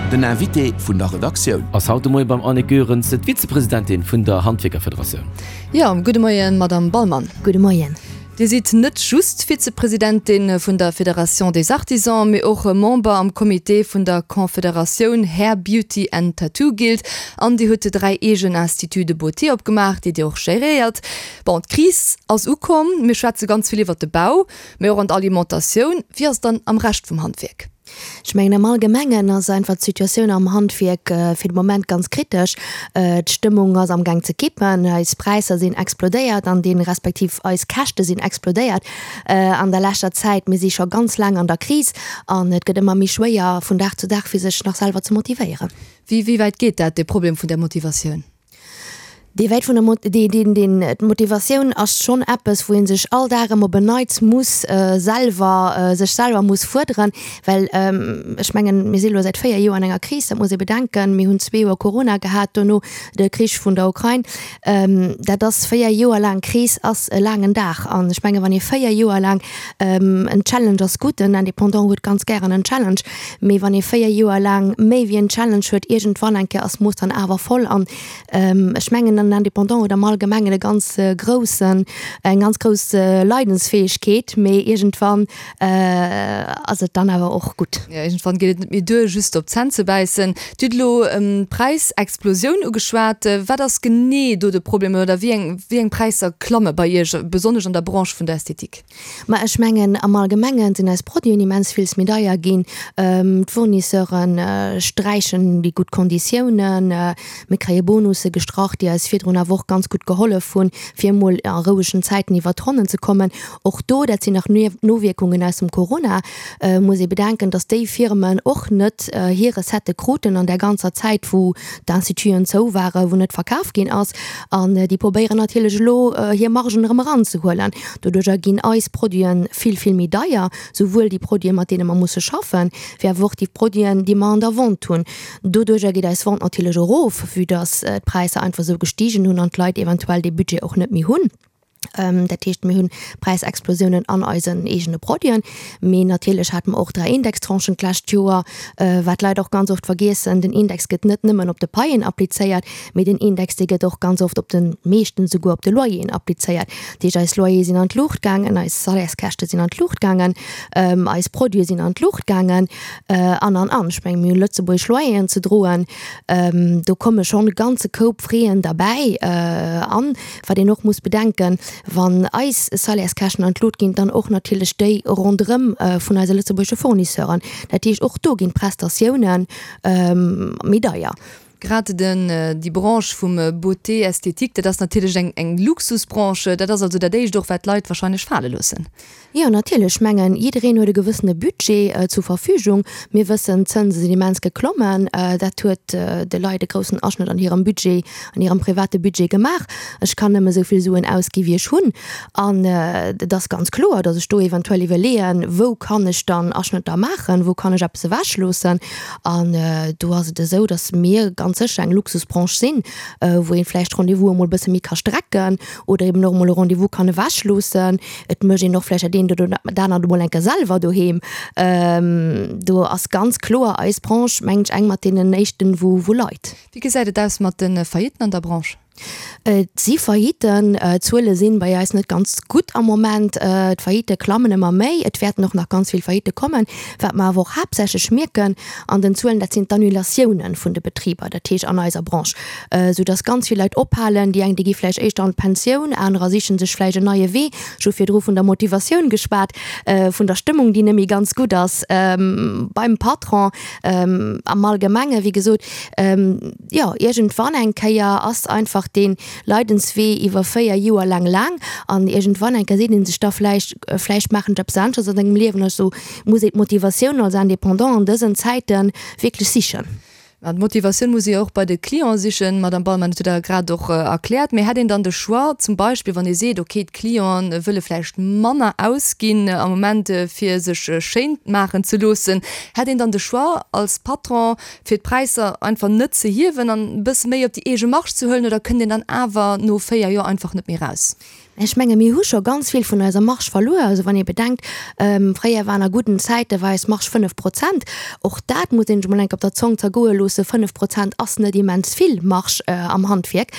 Den Invité vun der Redaktioun. Ass haut de Moie beim Annick Goerens, d'Vizepresidentin vun der Handwierkerfederatioun. Jo, gudde Moien, Madamm Ballmann. Gudde Moien. Dir sidd net just Vizepresidentin vun der Fédération des Artisans, mee och Member am Comité vun der Confederatioun Hair, Beauty and Tattoo Guild an Dir hutt 3 eegen Instituts de beauté opgemaach, déi Dir och geréiert. Bon, d'Kris ass ukomm, mir schwätze ganz vill iwwert de Bau, mee och an d'Alimentatioun. Wéi ass et dann am Rescht vum Handwierk? Ech mengen, am Allgemengen ass einfach d'Situatioun am Handwierk fir de Moment ganz kritesch. D'Stëmmung ass amgaang ze kippen. Eis Präisser sinn explodéiert an dee respektiv eis Käschte sinn explodéiert an der leschter Zäit. Mir si scho ganz laang an der Kris an et gëtt ëmmer méi schwéier vun Dag zu Dag fir sech nach selwer ze motivéieren. Wéi wäit geet dat, dee Problem vun der Motivatioun? Dee wäit vun der Mot-, dee, deen, deen, d'Motivatioun ass schonn eppes, wou ee sech all Dag erëm op en Neits muss selwer, sech selwer muss fuerderen, well ech mengen, mir si lo säit 4 Joer an enger Kris, dat muss ee bedenken. Mir hunn zwee Joer Corona gehat, dono de Krich vun der Ukrain. Dat ass 4 Joer laang Kris ass e laangen Dag. An ech mengen, wann ee 4 Joer laang, en Challenge ass gutt, en Indépendant huet ganz gären en Challenge, mee wann ee 4 Joer laang méi wéi en Challenge huet, iergendwann eng Kéier ass d'Mooss dann awer voll. An Ech mengen en Indépendant huet am Allgemengen e ganz groussen, eng ganz grouss Leidensfäegkeet, mee iergendwann ass et dann awer och gutt. Jo, iergendwann geet et net méi duer, just op d'Zänn ze bäissen. Dir hutt elo d'Präisexplosioun ugeschwat. Wat ass genee do de Problem oder wéi eng, wéi eng Präisser klamme bei Iech, besonnesch an der Branche vun der Ästhetik? Ma ech mengen, am Allgemenge sinn eis Produiten immens villes méi deier ginn. D'Fournisseure sträichen déi gutt Konditiounen. Mir kréie Bonusse gestrach, déi eis virdrun awer och ganz gutt gehollef hunn, fir emol a rouegen Zäiten iwwert d'Ronnen ze kommen. Och do, dat sinn nach Nowierkungen aus dem Corona, muss ee bedenken, datt déi Firmen och net hir Recettë kruten an där ganzer Zäit, wou d'Instituten zou waren, wou net verkaf ginn ass. An déi probéieren natierlech elo, hir Margen erëm eranzehuelen. Doduerjer ginn eis Produiten vill, vill méi deier, souwuel déi Produiten, mat deene mer musse schaffen, wéi awer och déi Produiten, déi mer an der Vente hunn. Doduerjer geet eis Vente natierlech erof, vue dass d'Präisser einfach esou gestigen hunn an d'Leit eventuell dee Budget och net méi hunn. Dat heescht, mir hunn Präisexplosiounen an eisen eegene Produiten. Mee natierlech hate mer och 3 Indextranchen d'lescht Joer, wat d'Leit och ganz oft vergiessen, Den Index gëtt net nëmmen op de Paien applizéiert, Mee den Index, dee gëtt och ganz oft op de, meeschtens esouguer op de Loyeren applizéiert. Dat heescht, eis Loyere sinn an d'Luucht gaangen, eis Salaires-käschte sinn an d'Luucht gaangen, eis Produite sinn an d'Luucht gaangen an, an, an. Ech mengen, mir hunn lëtzebuergesch Loyeren ze droen. Do komme schonn e ganze Koup Fräen derbäi. An, wat een och muss bedenken, wann eis Salaires-käschten an d'Lut ginn, dann och natierlech déi ronderëm vun eise lëtzebuergesche Fournisseuren. Dat heescht, och do ginn d'Prestatiounen méi deier. Grad den, déi Branche vum Beauté esthétique, dat ass natierlech eng, eng Luxusbranche. Dat ass also dat éischt och, wat d'Leit wahrscheinlech fale loossen. Jo, natierlech. Ech mengen, jiddereen huet e gewëssene Budget zur Verfügung. Mir wëssen, d'Zënse sinn immens geklommen. Dat huet de Leit e groussen Aschnëtt an hirem Budget, an hirem private Budget gemaach. Ech kann nëmme esou vill Suen ausgi wéi ech hunn. An et ass ganz kloer, datt ech do eventuell iwwerleeën, wou kann ech dann Aschnëtter maachen, wou kann ech eppes ewechloossen. An do ass et esou, datt mir ganz sécher eng Luxusbranche sinn, wou ee vläicht Rendez-vous emol e bësse méi ka strecken oder eben och emol e Rendez-vous kann ewechloossen. Et mécht een och vläicht dat eent oder dat anert emol eng Kéier selwer doheem. Do ass ganz kloer eis Branche, mengen ech, eng mat deenen éischten, wou leit. Wéi gesäit et aus mat de Faillitten an der Branche? Et si Faillitten. D'Zuele sinn bei eis net ganz gutt am Moment. D'Faillitte klammen ëmmer méi. Et wäerten och nach ganz vill Faillitte kommen. Wat mer awer och haaptsächlech mierken an den Zuelen, dat sinn d'Annulatiounen vun de Betriber, dat heescht an eiser Branche, soudass ganz vill Leit ophalen. Déi eng, déi gi vläicht éischter an d'Pensioun, anerer siche sech vläicht en neie Wee. Ech hu virdru vun der Motivatioun geschwat, vun der Stëmmung, déi net méi ganz gutt ass beim Patron am Allgemengen. Wéi gesot, jo, iergendwann eng Kéier ass einfach dee Leidenswee iwwer 4 Joer laang laang an iergendwann eng Kéier seet ee sech da vläicht, vläicht maachen ech eppes aneschters an sengem Liewen. Also muss ee d'Motivatioun als Indépendant an dësen Zäite wierklech sichen. An d'Motivatioun muss ee jo och bei de Clienten sichen, Madamm Ballmann, dat hutt Der grad och erkläert. Mee hätt een dann de Choix, zum Beispill wann ee seet, okay, d'Clienten wëlle vläicht manner ausginn am Moment, fir sech schéin maachen ze loossen, hätt een dann de Choix als Patron, fir d'Präisser einfach net ze hiewen an e bësse méi op déi eege Marge ze huelen, oder kënnt een dann awer no 4 Joer einfach net méi raus? Ech menge mir hu scho ganz vill vun eiser Marge verluer. Also wann ee bedenkt, fréier waren a gudden Zäite war eis Marge 5 Prozent. Och dat muss een sech emol eng Kéier op der Zong zergoe loossen, 5 Prozent ass net immens vill Marge am Handwierk.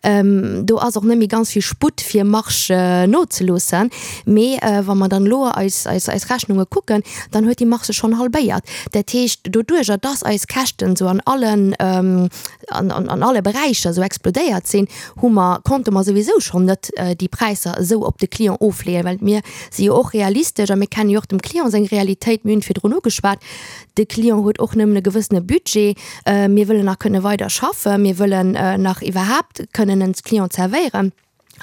Do ass och net méi ganz vill Sputt fir Marge nozeloossen. Mee wa mer dann elo eis eis Rechnunge kucken, dann huet déi Marge sech schonn halbéiert. Dat heescht, doduerjer dass eis Käschten esou an allen an alle Beräicher esou explodéiert sinn, hu mer, konnte mer souwisou schonn net déi Präisser esou op de Client ofleeën, well mir si jo och realistesch a mir kenne jo och dem Client seng Realitéit. Mir hunn virdrun ugeschwat, de Client huet och nëmmen e gewëssene Budget. Mir wëllen nach kënne weider schaffen, mir wëllen nach iwwerhaapt kënnen en Client zerwéieren.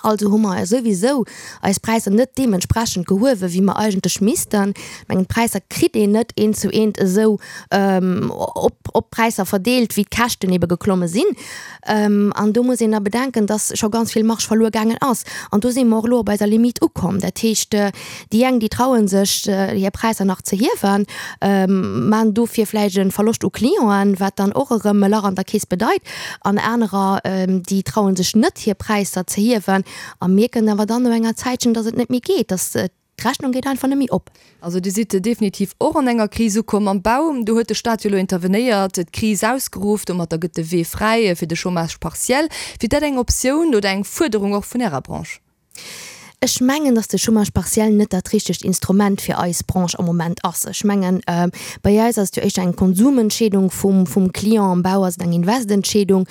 Also hu mer souwisou eis Präisser net deementsprechend gehuewen, wéi mer eigentlech missten. Ech mengen, d'Präisser kritt een net eent zu eent esou op op d'Präisser verdeelt, wéi d'Käschten ebe geklomme sinn. An do muss een da bedenken, dass scho ganz vill Marge verluer gaangen ass. An do si mer och elo op eiser Limite ukomm. Dat heescht, déi eng, déi traue sech, hir Präisser nach ze hiewen, maachen dofir vläicht e Verloscht u Clienten, wat dann och erëm e Lach an der Keess bedeit. An anerer, déi traue sech net, hir Präisser ze hiewen a mierken awer dann no enger Zäitchen, dass et net méi geet, dass d'Rechnung geet einfach net méi op. Also Dir sidd definitiv och an enger Kris ukomm am Bau. Do huet de Staat jo elo intervenéiert, d'Kris ausgeruff. Domatter gëtt de Wee fräi fir de Chômage partiel. Wier dat eng Optioun oder eng Fuerderung och vun Ärer Branche? Ech mengen, dass de Chômage partiel net dat richtegt Instrument fir eis Branche am Moment ass. Ech mengen, bei eis ass et jo éischter eng Konsumentscheedung vum, vum Client, am Bau ass et eng Investentscheedung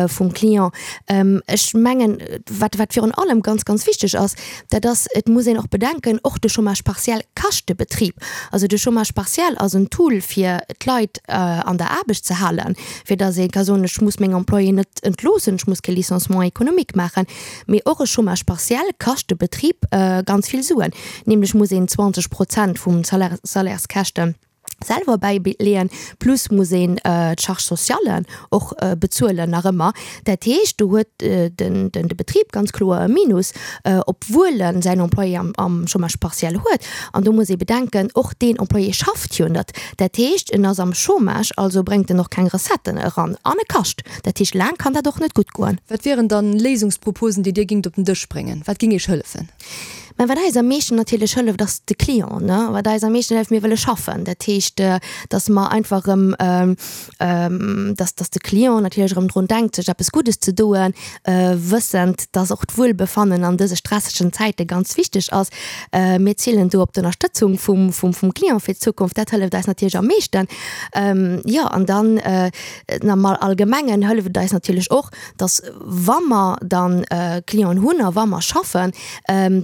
vum Client. Ech mengen, wat, wat virun allem ganz, ganz wichteg ass, dat ass, et muss een och bedenken, och de Chômage partiel kascht de Betrib. Also de Chômage partiel ass en Tool, fir d'Leit an der Aarbecht ze halen, fir dass ee ka soen, ech muss meng Employéen net entloossen, ech muss kee Licenciement économique maachen. Mee och e Chômage partiel kascht de Betrib ganz vill Suen, nämlech muss een 20 Prozent vum Salairskäschte selwer bäileeën, plus muss een d'Charges sociales och bezuelen nach ëmmer. Dat heescht, do huet de Betrib ganz kloer e Minus, obwuel e säin Employé am Chômage partiel huet. An do muss ee bedenken, och deen Employé schafft jo net. Dat heescht, en ass am Chômage, also bréngt en och keng Recetten eran an e kascht. Dat heescht, laang kann dat och net gutt goen. Wat wieren dann Léisungsproposen, déi Dir gingt op den Dësch bréngen? Wat ging Iech hëllefen? Mä wat eis am meeschten natierlech hëlleft, ass de Client, ne? Wat eis am meeschten hëlleft, mir wëlle schaffen. Dat heescht, datt mer einfach erëm, datt, datt de Client natierlech erëm drun denkt, sech eppes Guddes ze doen, wëssend, datt och d'Wuelbefannen an dëse stressegen Zäite ganz wichteg ass. Mir zielen do op d'Ënnerstëtzung vum, vum, vum Client fir d'Zukunft. Dat hëlleft eis natierlech am meeschten. Jo, an dann, Am Allgemengen hëlleft et eis natierlech och, dass wa mer dann Clienten hunn a wa mer schaffen,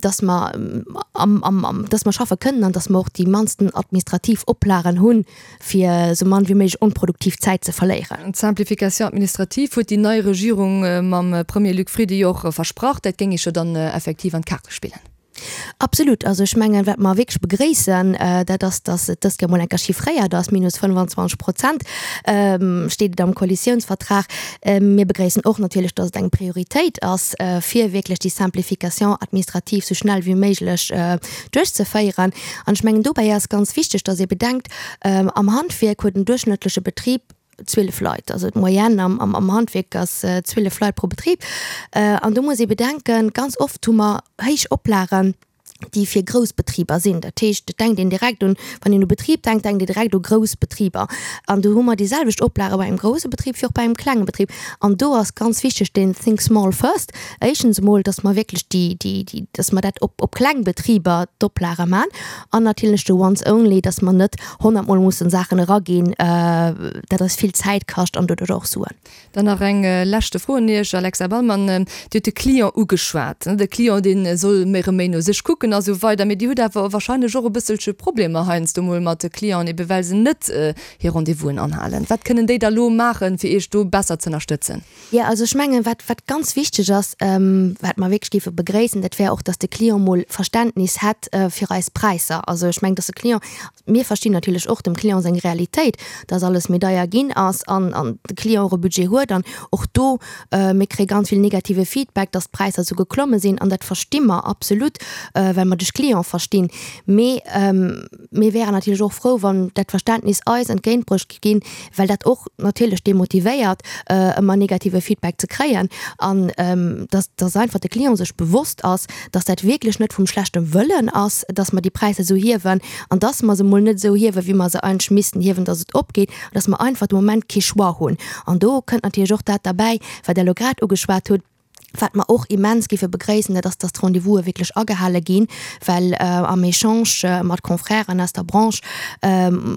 dass mer dass mer schaffe kënnen an dass mer och déi mannsten administrativ Oplagen hunn, fir esou mann wéi méiglech onproduktiv Zäit ze verléieren. D'Simplification administrative huet déi nei Regierung mam Premier Luc Frieden jo och versprach. Dat géing Iech jo dann effektiv an d'Kaarte spillen. Absolut. Also ech mengen, wat mer wierklech begréissen, dat ass, dass et dëst Joer mol eng Kéier chiffréiert ass, minus 25 Prozent steet et am Koalitiounsvertrag. Mir begréissen och natierlech, dass et eng Prioritéit ass, fir wierklech déi Simplification administrative sou schnell wéi méiglech duerchzeféieren. An ech mengen, dobäi ass ganz wichteg, dass ee bedenkt, am Handwierk huet en duerchschnëttleche Betrib 12 Leit, also d'Moyenne am, am, am Handwierk ass 12 Leit pro Betrib. An do muss ee bedenken, ganz oft hu mer héich Oplagen, déi fir grouss Betriber sinn. Dat heescht, et denkt een direkt un, wann een u Betrib denkt, denkt een direkt u grouss Betriber. An do hu mer déi selwecht Oplage bei engem grousse Betrib wéi och bei engem klenge Betrib. An do ass ganz wichteg deen Think small first. Éischtens emol, dass mer wierklech déi, déi, déi, dass mer dat op, op kleng Betriber d'Oplage man. An natierlech de once only, dass mer net honnertmol mussen Saachen eraginn, dat eis vill Zäit kascht an doduerch och Suen. Dann nach eng leschte Fro un Iech, Alexa Ballmann. Dir hutt de Client ugeschwat. De Client, dee soll méi erëm méi no sech kucken a sou weider. Mee Dir hutt awer wahrscheinlech och e bësselche Problemer heiansdo mol mat de Clienten, ebe well se net hir Rendez-vousen anhalen. Wat kënnen déi da lo maachen, fir Iech do besser z'ënnerstëtzen? Jo, also ech mengen, wat, wat ganz wichteg ass, wat mer wierklech géife begréissen, dat wär och, dass de Client mol Verständnis hätt fir eis Präisser. Also ech mengen, dass de Client, mir verstinn natierlech och dem Client seng Realitéit, dass alles. alles méi deier ginn ass an an de Client och e Budget huet an och do, mir kréie ganz vill negative Feedback, dass d'Präisser esou geklomme sinn an dat versti mer absolut, well mer de Client verstinn. Mee mir wären natierlech och frou, wann dat Verständnis eis entgéintbruecht géif ginn, well dat och natierlech demotivéiert, ëmmer negative Feedback ze kréien an dass dass einfach de Client sech bewosst ass, dass dat wierklech net vum schlechte Wëllen ass, dass mer déi Präisser esou hiewen an dass mer se emol net esou hiewen, wéi mer se eigentlech missten hiewen, dass et opgeet, an dass mer einfach de Moment kee Choix hunn. An do kënnt natierlech och dat derbäi, wat Der elo grad ugeschwat hutt, Wat mer och immens géife begréissen, dat ass, dass d'Rendez-vouse wierklech agehale ginn, well am Echange mat Confrèren aus der Branche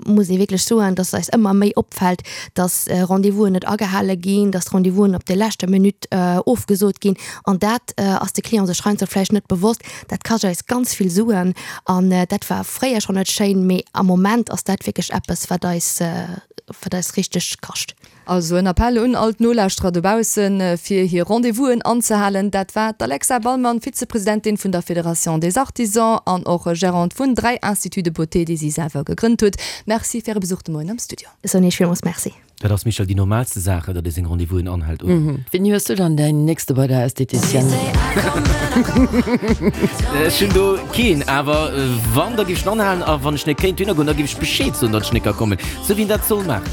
muss ee wierklech soen, dass eis ëmmer méi opfält, dass Rendez-vousen net agehale ginn, dass d'Rendez-vousen op der leschter Minutt ofgesot ginn. An dat ass de Client sech heiansdo vläicht net bewosst. Dat kascht eis ganz vill Suen an dat war fréier schonn net schéin, mee am Moment ass dat wierklech eppes, wat eis, wat eis richteg kascht. Also en Appell un all d'Nolauschterer dobaussen, fir hir Rendez-vousen anzehalen. Dat war d'Alexa Ballmann, Vizepresidentin vun der Fédération des Artisans an och Gérante vun 3 Instituts de beauté, déi si selwer gegrënnt huet. Merci fir Äre Besuch de Moien am Studio. Ech soen Iech villmools Merci. Dat ass, Michèle, déi normalste Saach, datt ee seng Rendez-vousen anhält, oder? Wéini hues du dann däin nächste bei der Esthéticienne? Ech hunn do keen, awer wann, da géif ech en anhalen. A wann ech net kéint dohinner goen, da géif ech Bescheed soen, datt ech net ka kommen, sou wéi een dat soll maachen.